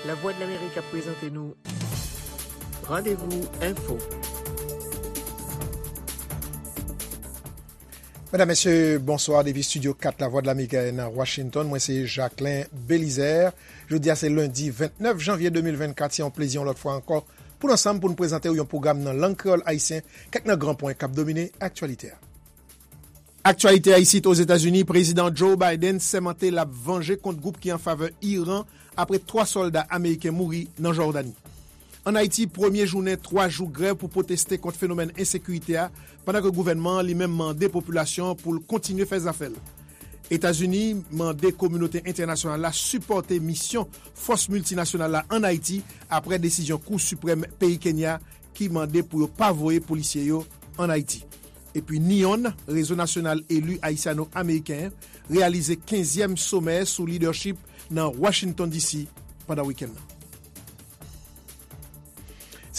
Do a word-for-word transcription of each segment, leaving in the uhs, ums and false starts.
Lavwadlamerik ap prezante nou Randevou Enfo. Medam, mesye, bonswa. Depi Estidyo kat Lavwadlamerik nan Washington, mwen se Jacquelin Belizaire. Jodi a se lendi vennèf janvye de mil vennkat. Se yon plezi yon lòt fwa ankò pou n ansanm pou n prezante w yon pwogram nan lang kreyòl ayisyen, kèk nan gran pwen k ap domine aktyalite a. Aktyalite a isit Ozetazini, Prezidan Joe Biden sèmante l ap vanje kont gwoup ki an favè Iran apre twa sòlda ameriken mouri nan Jòdani. Ann Ayiti, premye jounen twa jou grèv pou pwoteste kont fenomèn ensekirite a, pandan ke gouvènman an li menm mande popilasyon an pou l kontinye fè zafè l. Etazini mande kominote entènasyonal la sipòte misyon fòs miltinasyonal la ann Ayiti apre desizyon Kou Siprèm peyi Kenya ki mande pou yo pa voye polisye yo ann Ayiti. Epi NEON, Rezo Nasyonal Eli Ayisyano-Ameriken, reyalize kenzyèm somè sou lidèchip nan Washington D C pandan wikenn nan.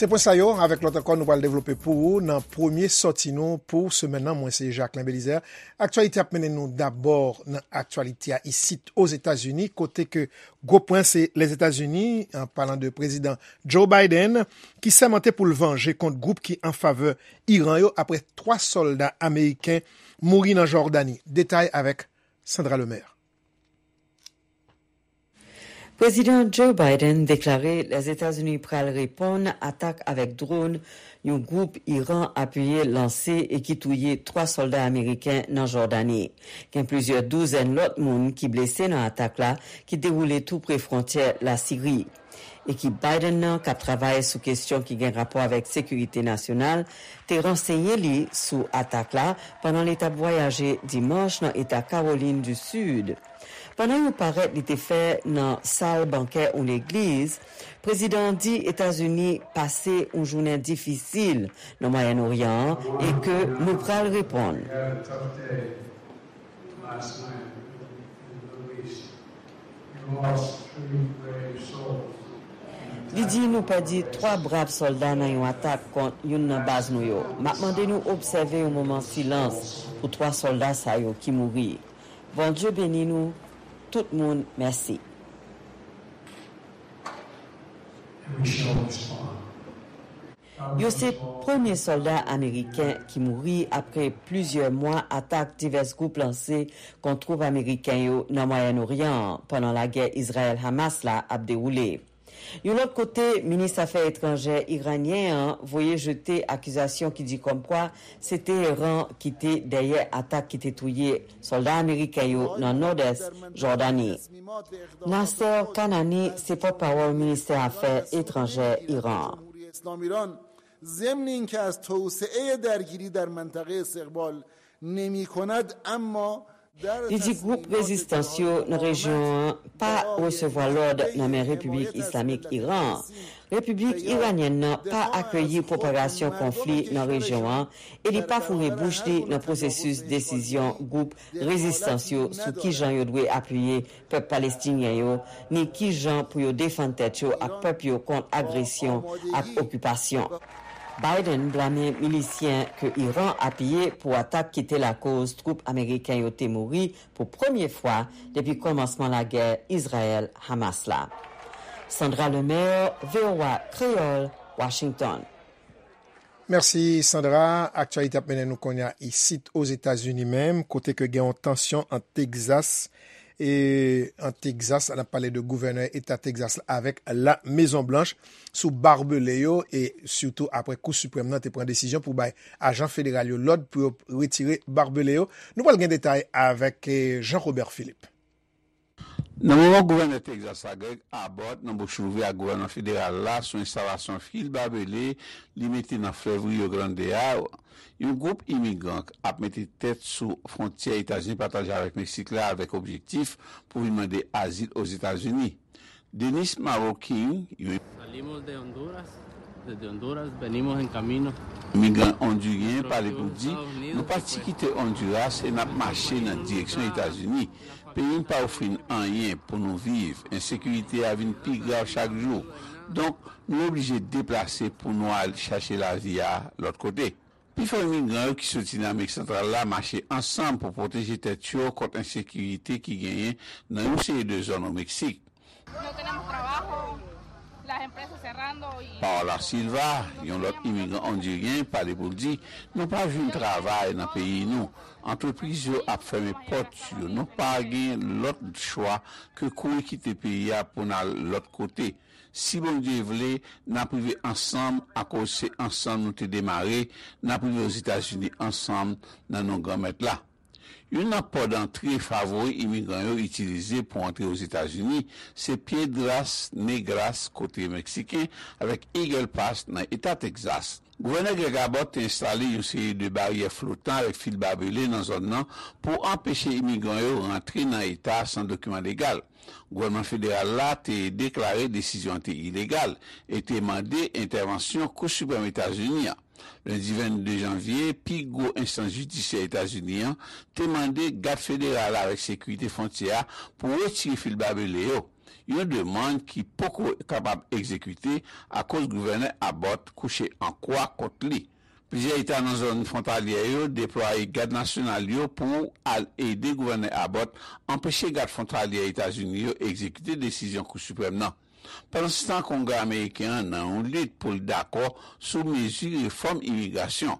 Se pwen sa yo, avèk lòt ankò, nou pral devlope pou ou nan premye sòti nou pou semèn nan. Mwen se Jacquelin Belizaire. Aktyalite ap mennen nou dabò nan aktyalite a isit Ozetazini, kote ke gwo pwen se Lèzetazini, an palan de Prezidan Joe Biden, ki sèmante pou l vanje kont gwoup ki an favè Iran yo apre twa sòlda ameriken mouri nan Jòdani. Detay avèk Sandra Lemaire. Prezidan Joe Biden deklare Lèzetazini pral reponn atak avèk dwòn yon gwoup Iran apiye lanse e ki touye twa sòlda ameriken nan Jòdani. Gen plizyè douzèn lòt moun ki blese nan atak la ki dewoule tou pre fwontyè Lasiri. Ekip Biden nan, k ap travay sou kesyon ki gen rapò avèk sekirite nasyonal, te ransenye li sou atak la pandan li t ap vwayaje dimanch nan eta Kawolin di Sid. Pandan yon parèt li te fè nan sal bankè yon legliz, prezidan an di Etazini pase yon jounen difisil nan Mwayen Oryan an e ke nou pral reponn. Li di nou pèdi twa brav sòlda nan yon atak kont youn nan baz nou yo. M ap mande nou obsève yon moman silans pou twa sòlda sa yo ki mouri. Bondye beni nou tout moun, mèsi. Yo se premye sòlda ameriken ki mouri apre plizyè mwa atak divès gwoup lanse kont twoup ameriken yo nan Mwayen Oryan an pandan lagè Izrayèl-Hamas la ap dewoule. Yon lòt kote, minis afè etranjè iranyen an voye jete akizasyon ki di kòmkwa se Teheran ki te dèyè atak ki te touye sòlda ameriken yo nan nòdès Jòdani. Nasser Kanani se pòtpawòl ministè afè etranjè Iran an. ضمن اینکه از توسعه درگیری در منطقه استقبال نمی‌کند، اما Li di gwoup rezistans yo nan rejyon an pa resevwa lòd nan men Repiblik Islamik Iran an. Repiblik Iranyèn nan pa akeyi pwopagasyon konfli nan rejyon an e li pa foure bouch li nan pwosesis desizyon gwoup rezistans yo sou kijan yo dwe apiye pèp palestinyen yo, ni kijan pou yo defann tèt yo ak pèp yo kont agresyon ak okipasyon. Biden blame milisyen ke Iran apiye pou atak ki te lakoz twoup ameriken yo te mouri pou premye fwa depi kòmansman lagè Izrayèl-Hamas la. Sandra Lemaire, V O A Kreyòl, Washington. Mèsi Sandra. Aktyalite ap mennen nou kounye a isit Ozetazini menm, kote ke gen yon tansyon ant Tegzas e ant Tegzas, n ap pale de gouvènè eta Tegzas la avèk La Mezon Blanch sou babele yo e sitou apre Kou Siprèm nan te pran desizyon pou bay ajan federal yo lòd pou yo retire babele yo. Nou pral gen detay avèk eh, Jean Robert Philippe. Nan moman gouvènè Tegzas la, Greg Abbott, nan bouch louvri ak gouvènman federal la sou enstalasyon fil babele li mete nan flèv Rio Grande a, yon gwoup imigran ap mete tèt sou fwontyè Etazini pataje avèk Meksik la avèk objektif pou vin mande azil Ozetazini. Dennis Maro King, yon Salimos de Honduras, desde Honduras, venimos en camino. Imigran ondiryen pale pou di, nou pati kite Onduras e n ap mache nan direksyon Etazini. Peyi n pa ofri n anyen pou nou viv. Ensekirite a vin pi grav chak jou. Donk, nou oblije deplase pou nou al chache lavi a lòt kote. Pifò imigran yo ki soti nan Amerik Santral la mache ansanm pou pwoteje tèt yo kont ensekirite ki genyen nan yon seri de zòn o Meksik. No tenemos trabajo, Paola Silva, yon lòt imigran ondiryen, pale pou l di, nou pa jwenn travay nan peyi nou. Antrepriz yo ap fèmen pòt yo. Nou pa gen lòt chwa ke kouri kite peyi a pou n al lòt kote. Si Bondye vle, n ap rive ansanm, akoz se ansanm nou te demare, n ap rive Ozetazini ansanm nan non Granmèt la. Youn nan pòt dantre favori imigran yo itilize pou antre Ozetazini se Piedras Negras, kote Meksiken, avèk Eagle Pass nan eta Texas. Gouvènè Greg Abbott te enstale yon seri de baryè flotan avèk fil babele nan zòn nan pou anpeche imigran yo rantre nan eta a san dokiman legal. Gouvènman federal la te deklare desizyon an te ilegal e te mande entèvansyon Kou Siprèm Etazini an. Lendi vennde janvye, pi gwo enstans jidisyè Etazini an te mande gad federal avèk sekirite fwontyè a pou retire fil babele yo, yon demann ki poko kapab egzekite akoz gouvènè Abbott kouche an kwa kont li. Plizyè eta nan zòn fwontalyè yo deplwaye gad nasyonal yo pou al ede gouvènè Abbott anpeche gad fwontalyè Etazini yo egzekite desizyon Kou Siprèm nan. Pandansetan, Kongrè ameriken an nan yon lit pou l dakò sou mezi refòm imigrasyon.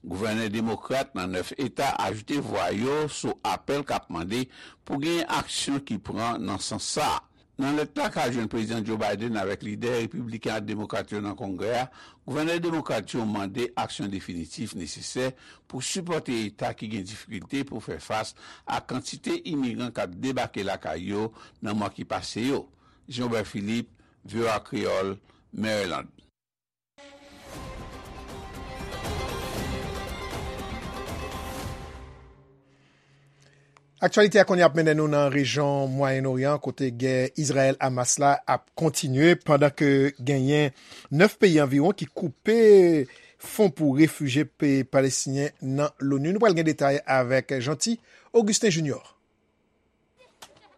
Gouvènè demokrat nan nèf eta ajoute vwa yo sou apèl k ap mande pou gen aksyon ki pran nan sans sa a. Nan lèt la k al jwenn Prezidan Joe Biden avèk lidè repibliken ak demokrat yo nan Kongrè a, gouvènè demokrat yo mande aksyon definitif nesesè pou sipòte eta ki gen difikilte pou fè fas a kantite imigran k ap debake lakay yo nan mwa ki pase yo. Jean Obert Philippe, V O A Kreyòl, Maryland. Aktyalite a kounye a ap mennen nou nan rejyon Mwayen Oryan, kote gè Izrayèl-Hamas la ap kontinye, pandan ke genyen nèf peyi anviwon ki koupe fon pou refijye pe-, palestinyen nan loni. Nou pral gen detay avèk Jeanty Augustin Junior.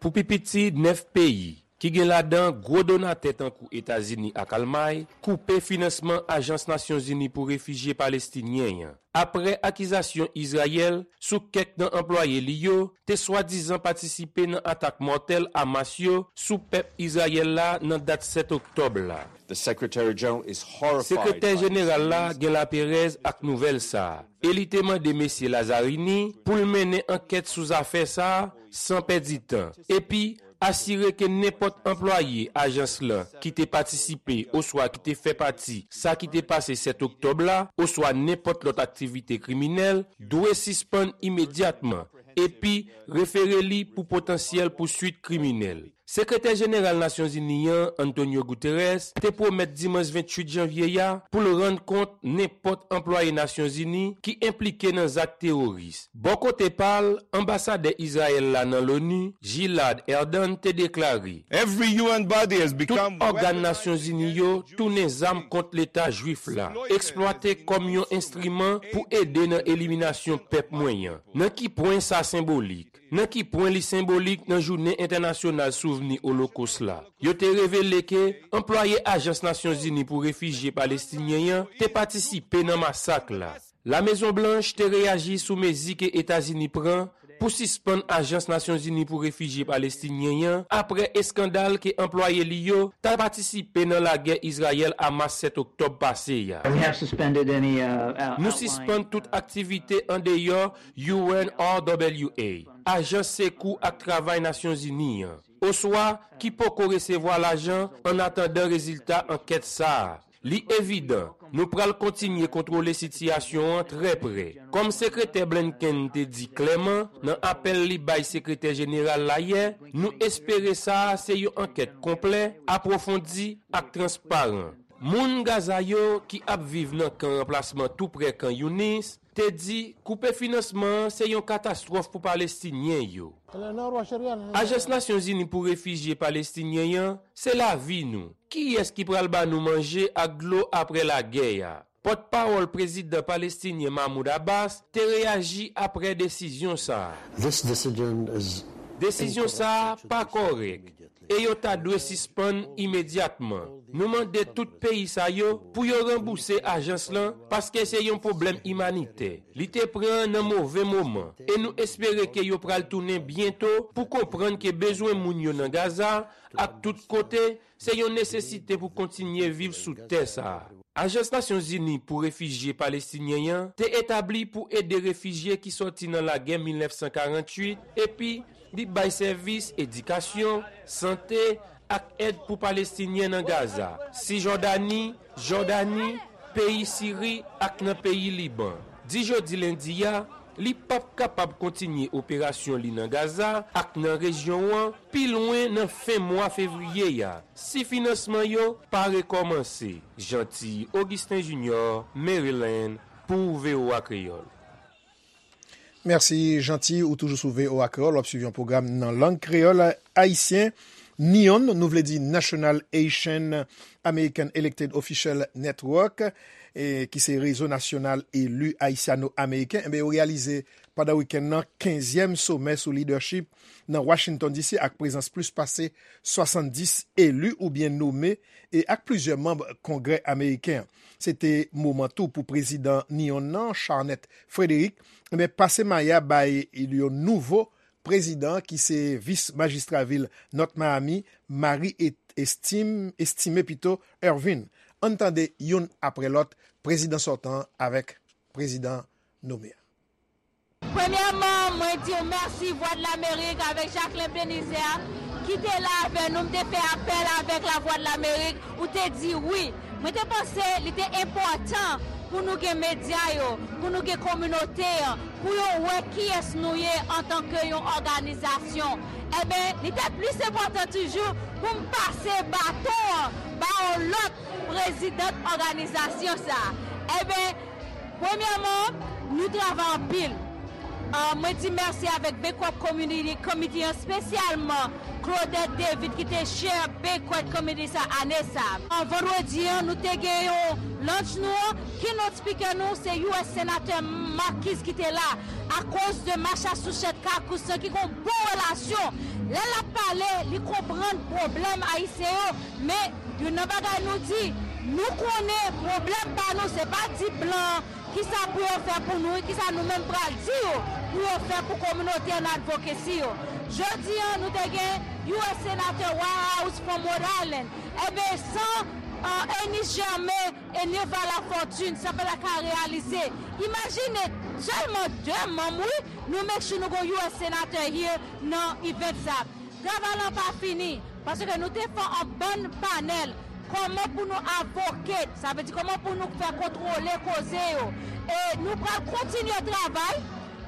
Pou pi piti nèf peyi, ki gen ladan gwo donatè tankou Etazini ak Almay, koupe finansman Ajans Nasyonzini pou Refijye Palestinyen an, apre akizasyon Izrayèl sou kèk nan anplwaye li yo te swadizan patisipe nan atak mòtèl Hamas yo sou pèp Izrayèl la nan dat sèt oktòb la. The Secretary General is horrified. Sekretè Jeneral la gen laperèz ak nouvèl sa a, e li te mande Mesye Lazzarini pou l mennen ankèt sou zafè sa a san pèdi tan, epi asire ke nenpòt anplwaye ajans lan ki te patisipe oswa ki te fè pati sa ki te pase sèt oktòb la, oswa nenpòt lòt aktivite kriminèl, dwe sispann imedyatman, epi refere li pou potansyèl pouswit kriminèl. Sekretè Jeneral Nasyonzini an, Antonio Guterres, te pwomèt dimanch venntuit janvye a pou l rann kont nenpòt anplwaye Nasyonzini ki enplike nan zak teworis. Bò kote pa l, anbasadè Izrayèl la nan loni, Gilad Erdan, te deklare, Every U N body has become Tout ògàn Nasyonzini yo tounen zam kont Leta Jwif la, eksplwate kòm yon enstriman pou ede nan eliminasyon pèp mwen an. Nan ki pwen sa senbolik? Nan ki pwen li senbolik nan Jounen Entènasyonal Souvni Olokos la? Yo te revele ke anplwaye Ajans Nasyonzini pou Refijye Palestinyen an te patisipe nan masak la. Lamezon Blanch te reyaji sou mezi ke Etazini pran pou sispann Ajans Nasyonzini pou Refijye Palestinyen an apre eskandal ke anplwaye li yo ta patisipe nan lagè Izrayèl-Hamas sèt oktòb pase a. We have suspended any, uh, out-, Nou outlying, sispann tout aktivite andeyò U N R W A, Ajans Sekou ak Travay Nasyonzini an, oswa ki poko resevwa lajan annatandan rezilta ankèt sa a. Li evidan, nou pral kontinye kontwole sitiyasyon an trè prè. Kòm Sekretè Blinken te di klèman nan apèl li bay Sekretè Jeneral la yè, nou espere sa a se yon ankèt konplè, apwofondi ak transparan. Moun Gaza yo ki ap viv nan kan ranplasman tou prè Kan Younis te di koupe finansman an se yon katastwòf pou Palestinyen yo. Ajans Nasyonzini pou Refijye Palestinyen an se lavi nou. Kiyès ki pral ba nou manje ak dlo apre lagè a? Pòtpawòl prezidan palestinyen Mahmoud Abbas te reyaji apre desizyon sa a. This decision is Desizyon sa a pa kòrèk. e yo ta dwe sispann imedyatman. Nou mande tout peyi sa yo pou yo ranbouse ajans lan, paske se yon pwoblèm imanitè. Li te pran nan move moman, e nou espere ke yo pral tounen byento pou konprann ke bezwen moun yo nan Gaza ak tout kote se yon nesesite pou kontinye viv sou tè sa a. Ajans Nasyonzini pou Refijye Palestinyen an te etabli pou ede refijye ki sòti nan lagè mil nèf san karanntuit, epi li bay sèvis edikasyon, sante, ak èd pou Palestinyen nan Gaza, Sijòdani, Jòdani, peyi Siri ak nan peyi Liban. Di jodi lendi a, li p ap kapab kontinye operasyon li nan Gaza ak nan rejyon an pi lwen nan fen mwa fevriye a, si finansman yo pa rekòmanse. Jeanty Augustin Junior, Maryland, pou V O A Kreyòl. Mèsi, Jeanty. Ou toujou sou V O A Kreyòl, w ap swiv yon pwogram nan lang kreyòl ayisyen. NEON, nou vle di National Haitian American Elected Official Network, e, ki se rezo nasyonal eli ayisyano-ameriken, enben, yo reyalize pandan wikenn nan kenzyèm somè sou lidèchip nan Washington D C ak prezans plis pase swasanndis eli oubyen nome e ak plizyè manm Kongrè ameriken an. Se te moman tou pou prezidan NEON nan, Charnette Frederick, enben, pase maya bay yon nouvo prezidan ki se vis majistra vil North Miami, Marie Et-, Estime, Estime pito, Ervin. Ann tande youn apre lòt, prezidan sòtan an avèk prezidan nome a. Premyèman, mwen di w mèsi Vwadlamerik avèk Jacquelin Belizaire ki te la avè nou. M te fè apèl avèk Lavwadlamerik, ou te di wi. Mwen te panse li te enpòtan pou nou gen medya yo, pou nou gen kominote an, pou yo wè kiyès nou ye antanke yon òganizasyon. Enben, li te plis enpòtan toujou pou m pase baton an ba yon lòt prezidant òganizasyon sa a. Enben, premyèman, nou travay anpil. Ah, mwen di mèsi avèk Banquet Community Committee an, espesyalman Claudette David ki te chair Banquet Committee sa ane sa. Ah, vandredi an, nou te gen yon launch nou an, keynote speaker nou, se U S Senatè Marquise ki te la, akoz de Massachusetts caucus lan ki gon bon relasyon. Lè l ap pale, li konprann pwoblèm ayisyen yo, men youn nan bagay nou di, nou konnen pwoblèm pa nou, se pa di blan an kisa pou yo fè pou nou, e kisa nou menm pral di yo pou yo fè pou kominote an, advocacy yo. Jodi an, nou te gen U S Senatè Waha House from Rhode Island. Enben, san, uh, Ernest Germain e Neva Lafortune, sa pa ta ka reyalize. Imajine, sèlman de manm, wi, nou make sure nou gon U S Senatè here nan event sa. Travay lan pa fini, paske nou te fè yon bann panèl, kòman pou nou advocate, sa vle di kòman pou nou fè kontwole koze yo. E nou pral kontinye travay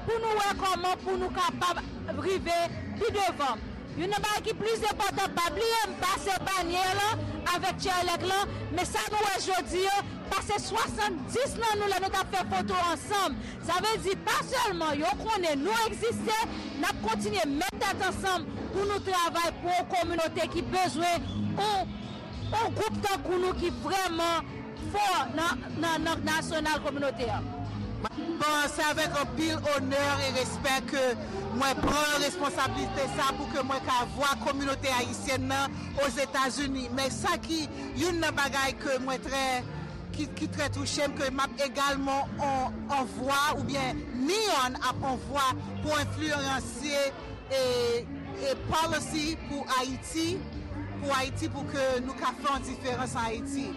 pou nou wè kòman pou nou kapab rive pi devan. Youn nan bagay ki plis enpòtan, pa bliye m pase banyè lan avèk chair elect lan, men sa nou wè jodi an, pase swasanndis nan nou lè nou t ap fè foto ansanm. Sa vle di pa sèlman yo konnen nou egziste, n ap kontinye met tèt ansanm pou nou travay pou yon kominote ki bezwen yon, yon gwoup tankou nou ki vrèman fò nan, nan, nan nasyonal kominote a. Bon, se avèk anpil onè e respè ke mwen pran responsablite sa pou ke mwen ka vwa kominote ayisyèn nan Ozetazini. Men sa ki youn nan bagay ke mwen trè, ki, ki trè touche m, ke m ap egalman on, on vwa oubyen NEON ap on vwa pou enfliyansye e, e policy pou Ayiti, pou Ayiti, pou ke nou ka fè yon diferans an Ayiti.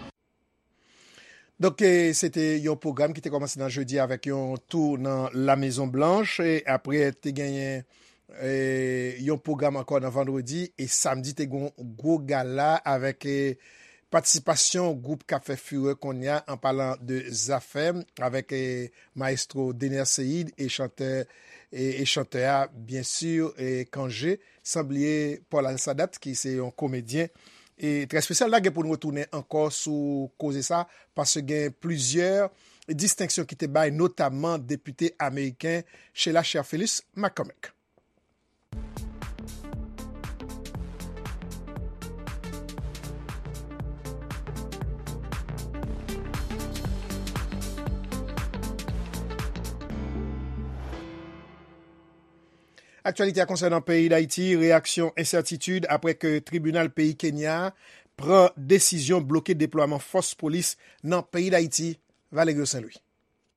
Donk, e, se te yon pwogram ki te kòmanse nan jedi avèk yon tou nan La Mezon Blanch, e apre te genyen, e, yon pwogram ankò nan vandredi, e samdi te gon gwo gala avèk, e, patisipasyon gwoup k ap fè furè kounye a, an palan de Zafèm, avèk, e, maestro Dener Ceïde e chantè, e, e chantè a, byen si, e, Kanje, san bliye Paul Alsadat, ki se yon komedyen, e trè espesyal. N a gen pou n retounen ankò sou koze sa, paske gen plizyè distenksyon ki te bay, notamman depite ameriken Sheila Cherfilus McCormick. Aktyalite a konsènan peyi Dayiti, reyaksyon ensètitid apre ke tribinal peyi Kenya pran desizyon bloke deplwaman fòs polis nan peyi Dayiti. Valerio Saint Louis.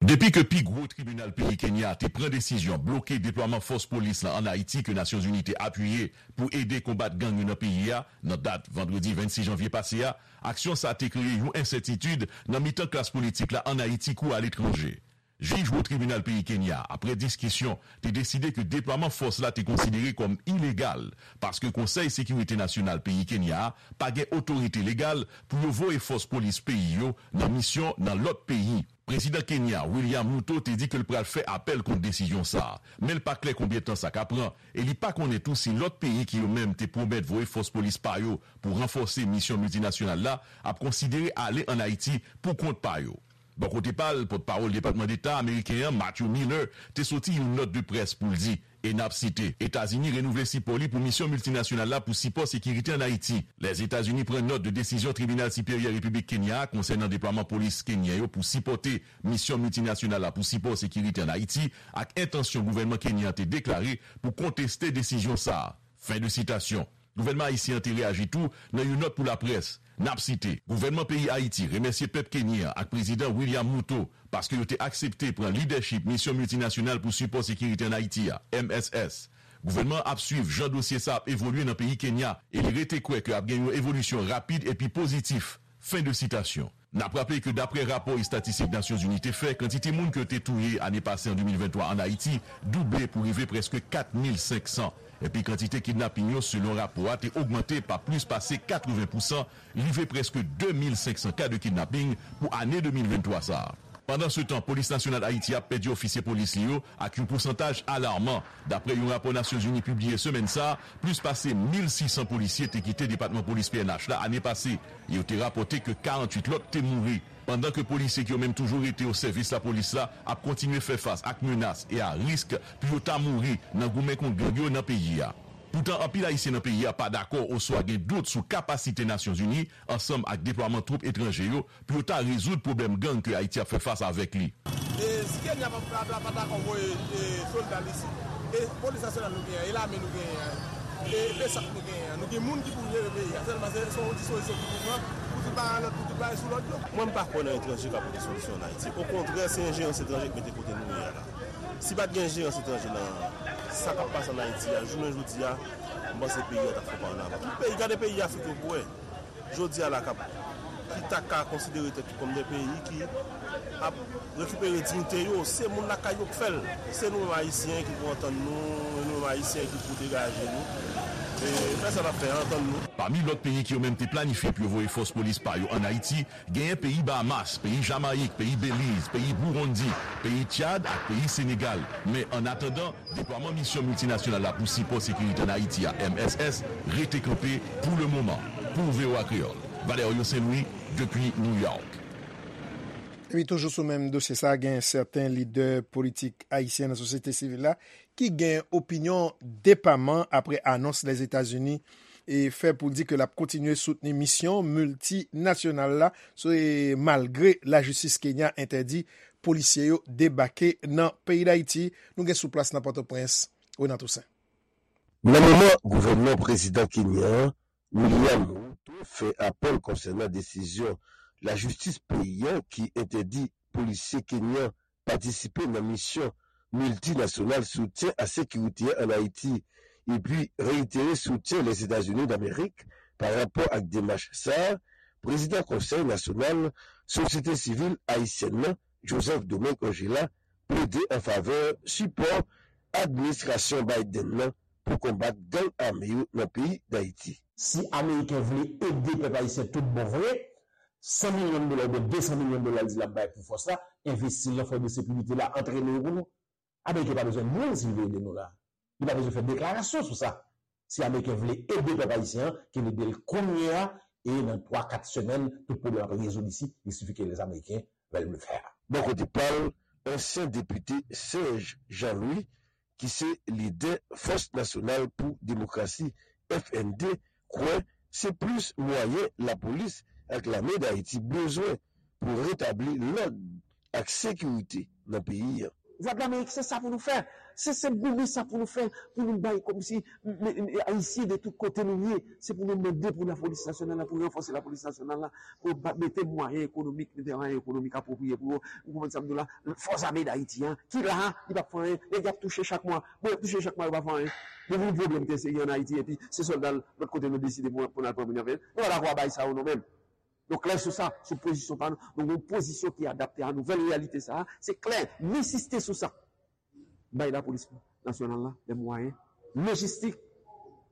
Depi ke pi gwo tribinal peyi Kenya te pran desizyon bloke deplwaman fòs polis la ann Ayiti ke Nasyonzini te apiye pou ede konbat gang yo nan peyi a, nan dat vandredi vennsis janvye pase a, aksyon sa a te kreye yon ensètitid nan mitan klas politik la ann Ayiti kou aletranje. Jij wo tribinal peyi Kenya, apre diskisyon, te deside ke deplwaman fòs la te konsidere kòm ilegal, paske Konsèy Sekirite Nasyonal peyi Kenya a pa gen otorite legal pou yo voye fòs polis peyi yo nan misyon nan lòt peyi. Prezidan Kenya, William Ruto, te di ke l pral fè apèl kont desizyon sa a, men l pa klè konbyen tan sa ka pran, e li pa konnen tou si lòt peyi ki yo menm te pwomèt voye fòs polis pa yo pou ranfòse misyon miltinasyonal la ap konsidere ale ann Ayiti pou kont pa yo. Bò kote pa l, pòtpawòl Depatman Deta ameriken an, Matthew Miller, te soti yon nòt de près pou l di, e n ap site, Etazini renouvle sipò li pou misyon miltinasyonal la pou sipò sekirite ann Ayiti. Lèzetazini pran nòt de desizyon Tribinal Siperyè Repiblik Kenya a konsènan deplwaman polis kenyen yo pou sipòte misyon miltinasyonal la pou sipò sekirite ann Ayiti ak entansyon gouvènman kenyen an te deklare pou konteste desizyon sa a. Fen de sitasyon. Gouvènman ayisyen an te reyaji tou nan yon nòt pou laprès. N ap site, Gouvènman peyi Ayiti remèsye pèp kenyen an ak Prezidan William Ruto paske yo te aksepte pran lidèchip Misyon Miltinasyonal pou Sipò Sekirite ann Ayiti a, M S S. Gouvènman an ap swiv jan dosye sa ap evolye nan peyi Kenya e li rete kwè ke ap gen yon evolisyon rapid epi pozitif. Fen de sitasyon. N ap raple ke dapre rapò estatistik Nasyonzini te fè, kantite moun ke yo te touye ane pase an de mil venntwa ann Ayiti double pou rive prèske kat mil senk san. Epi kantite kidnaping yo, selon rapò a, te ogmante pa plis pase katreven pousan, rive prèske de mil senk san ka de kidnaping pou ane de mil venntwa sa a. Pandansetan, Polis Nasyonal Ayiti a pèdi ofisye polis li yo ak yon pousantaj alarman. Dapre yon rapò Nasyonzini pibliye semèn sa a, plis pase mil sis san polisye te kite Depatman Polis P N H la ane pase. Yo te rapòte ke karanntuit lòt te mouri. Pandan ke polisye ki yo menm toujou rete o sèvis lapolis la ap kontinye fè fas ak menas e a risk pou yo ta mouri nan goumen kont gang yo nan peyi a. Poutan, anpil Ayisyen nan peyi a pa dakò oswa gen dout sou kapasite Nasyonzini, ansanm ak deplwaman twoup etranje yo, pou yo ta rezoud pwoblèm gang ke Ayiti ap fè fas avèk li. E si Kenya pa, pa, pa, pa dakò voye, e, sòlda l isit, e polis nasyonal nou genyen an, e lame nou genyen an, e besap nou genyen an, nou gen moun ki pou jere peyi a. Sèlman se, se yon dispozisyon ki pou pran pou tout bagay lòd, pou tout bagay sou lòd yo. Mwen, m pa kwè nan etranje ka pote solisyon ann Ayiti. Okontrè, se enjerans etranje k mete kote nou ye a la. Si pa t gen enjerans etranje nan sa k ap pase ann Ayiti a, jounen jodi a, m panse peyi a t ap fè pa annavan. Tout peyi, gade peyi Afrik yo pou wè. Jodi a la k ap, ki ta ka konsidere tèt yo kòm de peyi ki ap rekipere diyite yo, se moun lakay yo k fè l. Se nou menm Ayisyen ki pou antann nou, e nou menm Ayisyen ki pou degaje nou. E fè sa n ap fè a, antann nou. Pami lòt peyi ki yo menm te planifye pou yo voye fòs polis pa yo ann Ayiti, genyen peyi Bahamas, peyi Jamayik, peyi Beliz, peyi Burundi, peyi Tchad ak peyi Senegal. Men annatandan, deplwaman Misyon Miltinasyonal la pou Sipò Sekirite ann Ayiti a, M S S, rete kanpe pou lemoman. Pou V O A Kreyòl, Valerio Saint Louis, depi New York. Epi toujou sou menm dosye sa, gen sèten lidè politik ayisyen nan sosyete sivil la ki gen opinyon depaman apre anons Lèzetazini e fè pou l di ke l ap kontinye soutni misyon miltinasyonal la, se malgre lajistis Kenya entèdi polisye yo debake nan peyi Dayiti. Nou gen sou plas nan Pòtoprens, Renan Toussaint. Nan moman gouvènman prezidan kenyan an, William Ruto, fè apèl konsènan desizyon lajistis peyi a ki entèdi polisye kenyan patisipe nan misyon miltinasyonal soutyen a sekirite a ann Ayiti, epi reitere soutyen Lèzetazini Damerik pa rapò ak demach sa a, prezidan Konsèy Nasyonal Sosyete Sivil Ayisyèn nan, Joseph Domingue Orgella, plede an favè sipò administrasyon Biden nan pou konbat gang ame yo nan peyi Dayiti. Si Ameriken vle ede pèp ayisyen tout bon vre, san milyon dola oubyen de san milyon dola l di l ap bay pou fòs la, envesti l nan fòs de sekirite la, antrene yo pou nou. Ameriken pa bezwen moun si l vle ede nou la. Li pa bezwen fè deklarasyon sou sa. Si Ameriken vle ede pèp ayisyen an, ke l ede l kounye a, e nan twa, kat semèn, tout pwoblèm ap rezoud isi, il suffit que les Américains veulent le faire. Bò kote pa l, ansyen depite Serge Jean-Louis, ki se lidè Fòs Nasyonal pou Demokrasi, F N D, kwè se plis mwayen lapolis ak lame Dayiti bezwen pou retabli lòd ak sekirite nan peyi a. Vwadlamerik, se sa pou nou fè. Se senp goumen sa pou nou fè, pou nou bay kòmsi m- m- m- Ayisyen de tout kote nou ye. Se pou nou mande pou lapolis nasyonal la, pou ranfòse lapolis nasyonal la, pou ba- mete mwayen ekonomik, mete mwayen ekonomik apwopriye pou yo. Ou konprann sa m di w la? Fòs ame Dayiti an, ki la, li p ap fè anyen. Nèg y ap touche chak mwa. Bon, y ap touche chak mwa, yo pa fè anyen. Nou gen yon pwoblèm trè serye ann Ayiti, epi se sòlda lòt kote nou deside pou, pou n al pran moun yo avè l. Nou pa dakò a bagay sa yo, nou menm. Nou klè sou sa, sou pozisyon pa nou. Nou gen yon pozisyon ki adapte a nouvèl reyalite sa a. Se klè, m ensiste sou sa. Bay lapolis nasyonal la lè mwayen lojistik,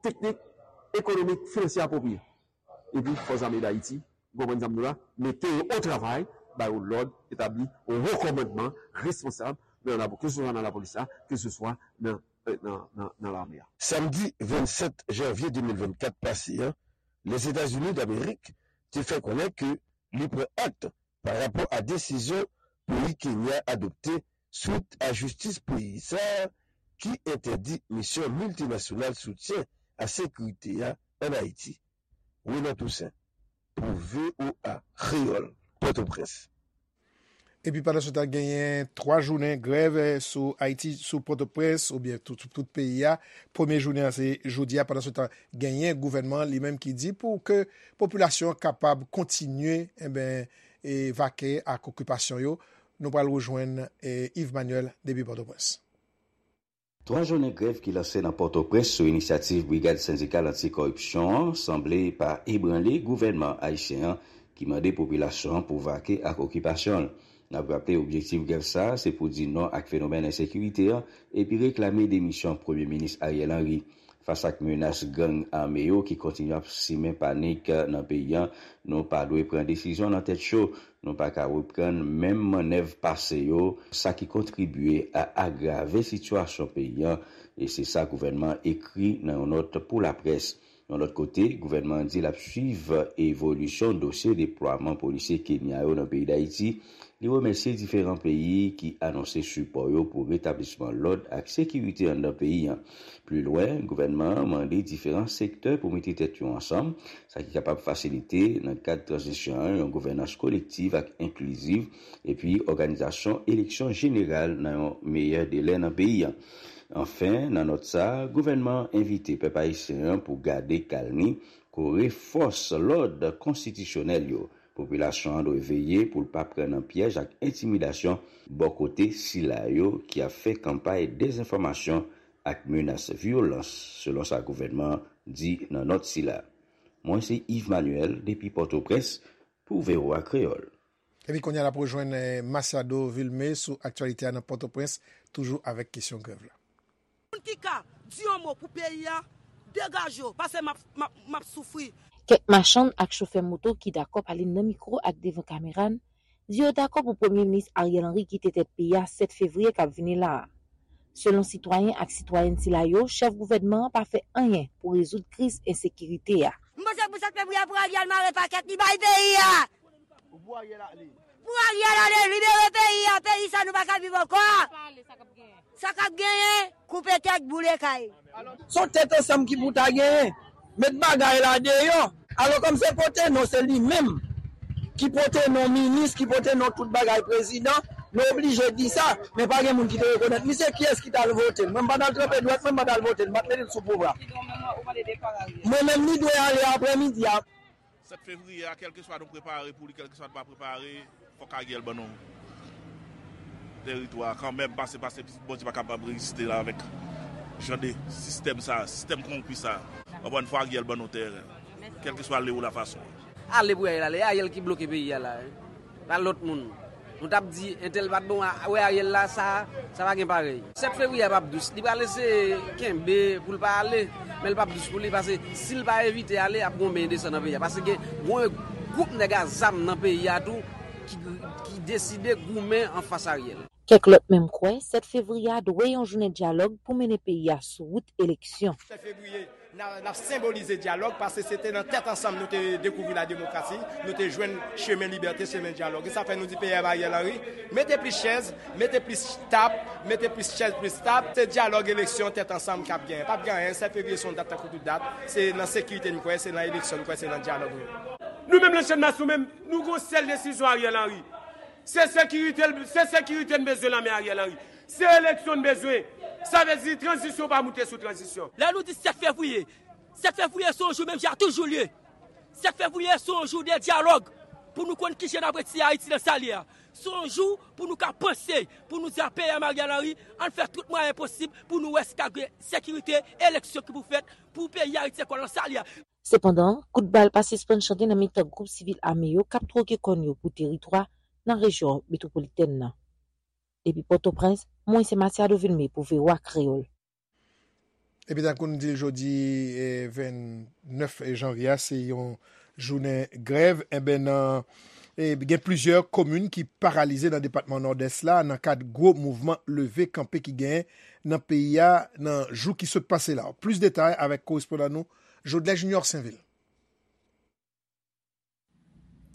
teknik, ekonomik, finansyè apwopriye. Epi Fòs Ame Dayiti, ou konprann sa m di w la, mete yo o travay, ba yo lòd, etabli yon wo kòmandman responsab nan lapo-, keseswa nan lapolis la, keseswa nan, nan, nan, nan lame a. Samdi vennsèt janvye de mil vennkat pase an, Lèzetazini Damerik te fè konnen ke li pran akte pa rapò a desizyon peyi Kenya adopte swit a jistis peyi sa a ki entèdi misyon miltinasyonal soutyen a sekirite a ann Ayiti. Renan Toussaint, pou V O A Kreyòl, Pòtoprens. Epi pandan se tan, genyen twa jounen grèv, eh, sou Ayiti, sou Pòtoprens, oubyen tout, sou tout peyi a. Premye jounen an, se jodi a. Pandan se tan, genyen gouvènman an li menm ki di pou ke popilasyon an kapab kontinye, enben, e vake ak okipasyon yo. Nou pral rejwenn, eh, Yves Manuel depi Pòtoprens. Twa jounen grèv ki lanse nan Pòtoprens sou inisyativ Brigad Sendikal Anti-Kòripsyon an sanble pa ebranle gouvènman ayisyen an ki mande popilasyon an pou vake ak okipasyon l. N ap raple, objektif grèv sa a se pou di non ak fenomèn ensekirite an epi reklame demisyon Premye Minis Ariel Henry. Fas ak menas gang ame yo ki kontinye ap simen panik nan peyi a, nou pa dwe pran desizyon nan tèt cho. Nou pa ka reprann menm mannèv pase yo, sa ki kontribye a agrave sitiyasyon peyi a, e se sa gouvènman an ekri nan yon nòt pou laprès. Yon lòt kote, gouvènman an di l ap swiv evolisyon dosye deplwaman polisye Kenya yo nan peyi Dayiti. Li remèsye diferan peyi ki anonse sipò yo pou retablisman lòd ak sekirite anndan peyi a. Pli lwen, gouvènman an mande diferan sektè pou mete tèt yo ansanm, sa ki kapab fasilite, nan kad tranzisyon an, yon gouvènans kolektiv ak enkliziv, epi òganizasyon eleksyon jeneral nan yon meyè delè nan peyi a. Anfen, nan nòt sa a, gouvènman an envite pèp ayisyen an pou gade kalmi, kore fòs lòd konstitisyonèl yo. Popilasyon an dwe veye pou l pa pran nan pyèj ak entimidasyon bò kote sila yo ki ap fè kanpay dezenfòmasyon ak menas vyolans, selon sa gouvènman an di nan nòt sila. Mwen se Yves Manuel depi Pòtoprens pou V O A Kreyòl. Epi kounye a n ap rejwenn, eh, Masiado Vilmé sou aktyalite a nan Pòtoprens, toujou avèk kesyon grèv la. Moun ki ka di yon mo pou peyi a, degaje w, paske m ap, m ap, m ap soufri. Kèk machann ak chofè moto ki dakò pale nan mikwo ak devan kamera n di yo dakò pou Premye Minis Ariel Henry kite tèt peyi a sèt fevriye k ap vini la a. Selon sitwayen ak sitwayèn sila yo, chèf gouvènman an pa fè anyen pou rezoud kriz ensekirite a. M panse pou sèt fevriye pou Ariel mare pakèt li bay peyi a. Pou Ariel ale. Pou Ariel ale, libere peyi a, peyi sa nou pa ka viv ankò. Sa k ap genyen, koupe tèt, boule kay. Se yon tèt ansanm ki pou ta genyen. Met bagay la deyò. Alò, kòm se pote non, se li menm ki pote non minis, ki pote non tout bagay prezidan, nou oblije di sa, men pa gen moun ki te rekonèt misye. Kiyès ki t al vote l? Mwen, m pa t al tranpe dwèt mwen, m pa t al vote l, m pa t mete l sou pouvwa. Mwen menm, li dwe ale aprèmidi a. Sèt fevriye a, kèlkeswa nou prepare pou li, kèlkeswa nou pa prepare, fòk Ariel ban nou teritwa a kanmenm, pase, pase Bondye pa kapab reziste la avèk jan de sistèm sa, sistèm konwonpi sa. Ankò yon fwa, Ariel ban nou tè, kèlkeswa le ou la fason. Ale pou Ariel ale, e Ariel ki bloke peyi a la, wi. Pa lòt moun. Nou t ap di, entèl pa t bon, a, wè Ariel la, sa, sa pa gen parèy. Sèt fevriye a p ap dous. Li pral eseye kenbe pou l pa ale, men l p ap dous pou li, paske si l pa evite ale, ap gen yon benyen de san nan peyi a. Paske gen yon gwoup nèg a zam nan peyi a tou ki, ki deside goumen anfas Ariel. Kèk lòt menm kwè, sèt fevriye a dwe yon jounen dyalòg pou mennen peyi a sou wout eleksyon. Sèt fevriye, n a, n ap senbolize dyalòg, paske se te nan tèt ansanm nou te dekouvri lademokrasi, nou te jwenn chemen libète, chemen dyalòg. E sa fè nou di P M Ariel Henry, mete plis chèz, mete plis tab, mete plis chèz, plis tab. Se dyalòg, eleksyon, tèt ansanm k ap genyen. P ap gen anyen, sèt fevriye se yon dat tankou tout dat. Se nan sekirite n kwè, se nan eleksyon n kwè, se nan dyalòg n kwè. Nou menm nan Channmas, nou menm, nou gon sèl desizyon Ariel Henry. Se sekirite, se sekirite n bezwen nan men Ariel Henry. Se eleksyon n bezwen. Sa vle di tranzisyon pa moute sou tranzisyon. Lè nou di sèt fevriye, sèt fevriye se yon jou menm jan toujou l ye. Sèt fevriye se yon jou de dyalòg pou nou konn kijan n ap retire Ayiti nan sa l ye a. Se yon jou pou nou ka panse, pou nou di a peyi a Ariel Henry, ann fè tout mwayen posib pou nou wè si ka gen sekirite, eleksyon ki pou fèt, pou peyi Ayiti ankò nan sa l ye a. Sepandan, kout bal pa sispann chante nan mitan gwoup sivil ame yo k ap twoke kòn yo pou teritwa nan rejyon metwopolitèn nan. Depi Pòtoprens, mwen se Matiado Vilmé pou V O A Kreyòl. Epi tankou n di l jodi, eh, vennèf janvye a, se yon jounen grèv. Enben, nan, eh, gen plizyè komin ki paralize nan depatman Nòdès la nan kad gwo mouvman leve kanpe ki genyen nan peyi a nan jou ki sot pase la. Plis detay avèk korespondan nou, Jodlè Junior Sainvil.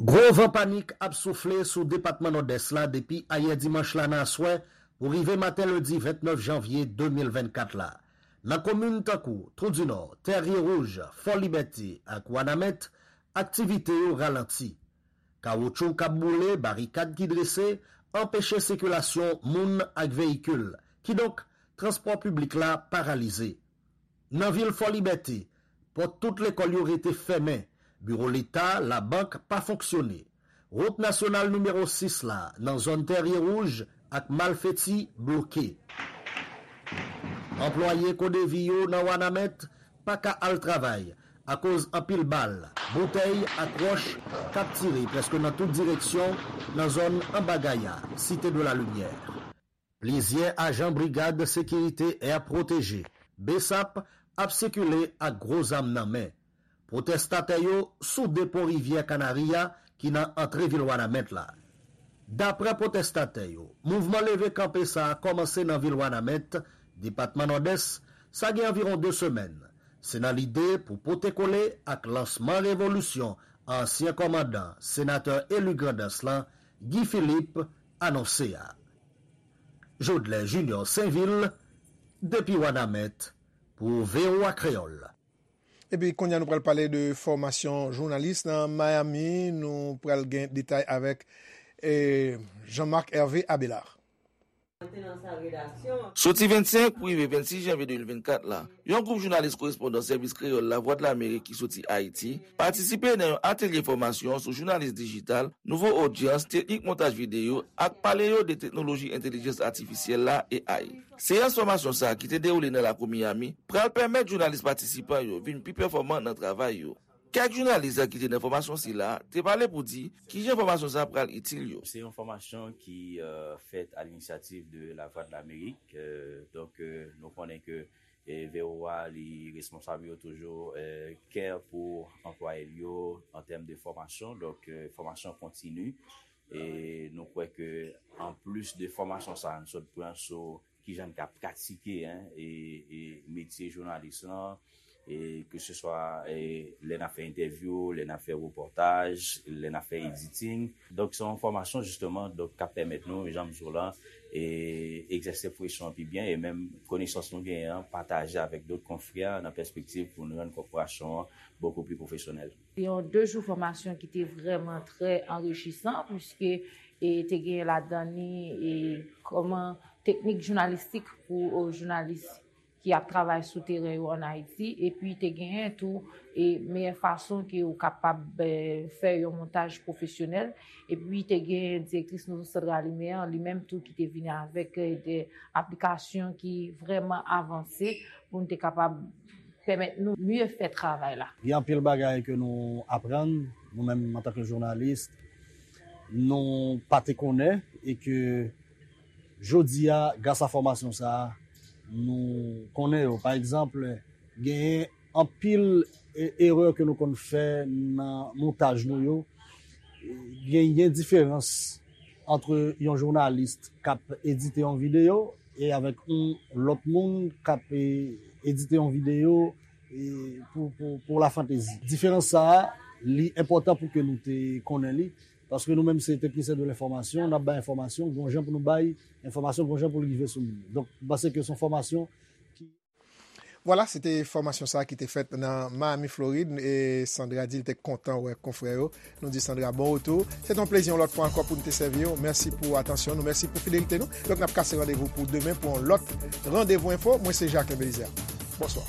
Gwo van panik ap soufle sou depatman Nòdès la depi ayè dimanch la nan aswè pou rive maten lendi vennèf janvye de mil vennkat la. Nan komin tankou Twou di Nò, Tèrye Wouj, Fò Libète ak Wanament, aktivite yo ralanti. Kawoutchou k ap boule, barikad ki drese, anpeche sikilasyon moun ak veyikil. Kidonk, transpò piblik la paralize. Nan vil Fò Libète, pòt tout lekòl yo rete fèmen, biwo Leta, labank pa fonksyone. Wout nasyonal nimewo sis la, nan zòn Tèrye Wouj ak Malfeti, bloke. Anplwaye Kodevi yo nan Wanament pa ka al travay akoz anpil bal, boutèy ak wòch k ap tire prèske nan tout direksyon nan zòn Anba Gaya, Cité de la Lumière. Plizyè ajan Brigad Sekirite Air Protégé, BSAP, ap sikile ak gwo zam nan men. Pwotestatè yo sou depo rivyè Kanari a ki nan antre vil Wanament la. Daprè pwotestatè yo, mouvman leve kanpe sa a kòmanse nan vil Wanament, depatman Nòdès, sa gen anviwon de semèn. Se nan lide pou pote kole ak lansman revolisyon ansyen kòmandan, senatè eli Grandans lan, Guy Philippe, anonse a. Jodlè Junior Sainvil, depi Wanament, pou V O A Kreyòl. Epi kounye a nou pral pale de fòmasyon jounalis nan Miami. Nou pral gen detay avèk, eh, Jean-Marc Hervé Abelard. Soti vennsenk pou rive vennsis janvye de mil vennkat la, yon gwoup jounalis korespondan Sèvis Kreyòl Lavwadlamerik ki soti Ayiti patisipe nan yon atelye fòmasyon sou jounalis dijital, nouvo odyans, teknik montaj videyo ak pale yo de teknoloji entèlijans atifisyèl la, A I. Seyans fòmasyon sa a ki te dewoule nan lakou Miami pral pèmèt jounalis patisipan yo vin pi pèfòman nan travay yo. Kèk jounalis ki te nan fòmasyon sila te pale pou di kijan fòmasyon sa a pral itil yo. Se yon fòmasyon ki, euh, fèt à l'initiative de La Voix de l'Amérique. Euh, donk, euh, nou konnen ke, eh, V O A li responsab yo toujou, eh, care pou anplwaye l yo an tèm de fòmasyon. Donk, eh, fòmasyon kontini. E nou kwè ke anplis de fòmasyon sa a nou sot pran sou kijan n ka pratike, en, e, e metye jounalis lan, e ke se swa, e lè n ap fè entèvyou, lè n ap fè repòtaj, lè n ap fè editing. Donk, se yon fòmasyon, jisteman, donk, k ap pèmèt nou, jan m di w lan, e egzèse presyon an pi byen, e menm konesans nou genyen an, pataje avèk dòt konfrè nan pèspektiv pou n rann kòporasyon an bokou pli pwofesyonèl. Se yon de jou fòmasyon ki te vrèman trè anrichisan, piske, e, te gen ladan li, e, kòman teknik jounalistik pou, e, jounalis ki ap travay sou teren yo ann Ayiti, epi te genyen tou, e, meyè fason ke ou kapab, e, fè yon montaj pwofesyonèl, epi te gen direktris Nouvo Sandra Lumière, li menm tou ki te vini avèk, e, de aplikasyon ki vrèman avanse pou n te kapab pèmèt nou mye fè travay la. Gen anpil bagay ke nou aprann, nou menm antanke jounalis, nou pa te konnen, e ke jodi a, gras a fòmasyon sa a, nou konnen yo. Pa egzanp, genyen anpil e-, erè ke nou konn fè nan montaj nou yo. Genyen diferans ant yon jounalis k ap edite yon videyo e avèk yon lòt moun k ap, e, edite yon videyo, e, pou, pou, pou lafantezi. Diferans sa a, li enpòtan pou ke nou te konnen li, paske nou menm se teknisyen de lenfòmasyon, n ap bay enfòmasyon, gon jan pou nou bay enfòmasyon, gon jan pou l rive sou moun. Donk, m panse ke se yon fòmasyon ki Vwala, se te fòmasyon sa a ki te fèt nan Miami, Florid, e Sandra di l te kontan wè konfrè yo. Nou di Sandra bon retou. Se te yon plezi yon lòt fwa ankò pou n te sèvi w. Mèsi pou atansyon nou, mèsi pou fidelite nou. Donk, n ap kase randevou pou demen pou yon lòt Randevou Enfo. Mwen se Jacques Belizaire. Bonswa.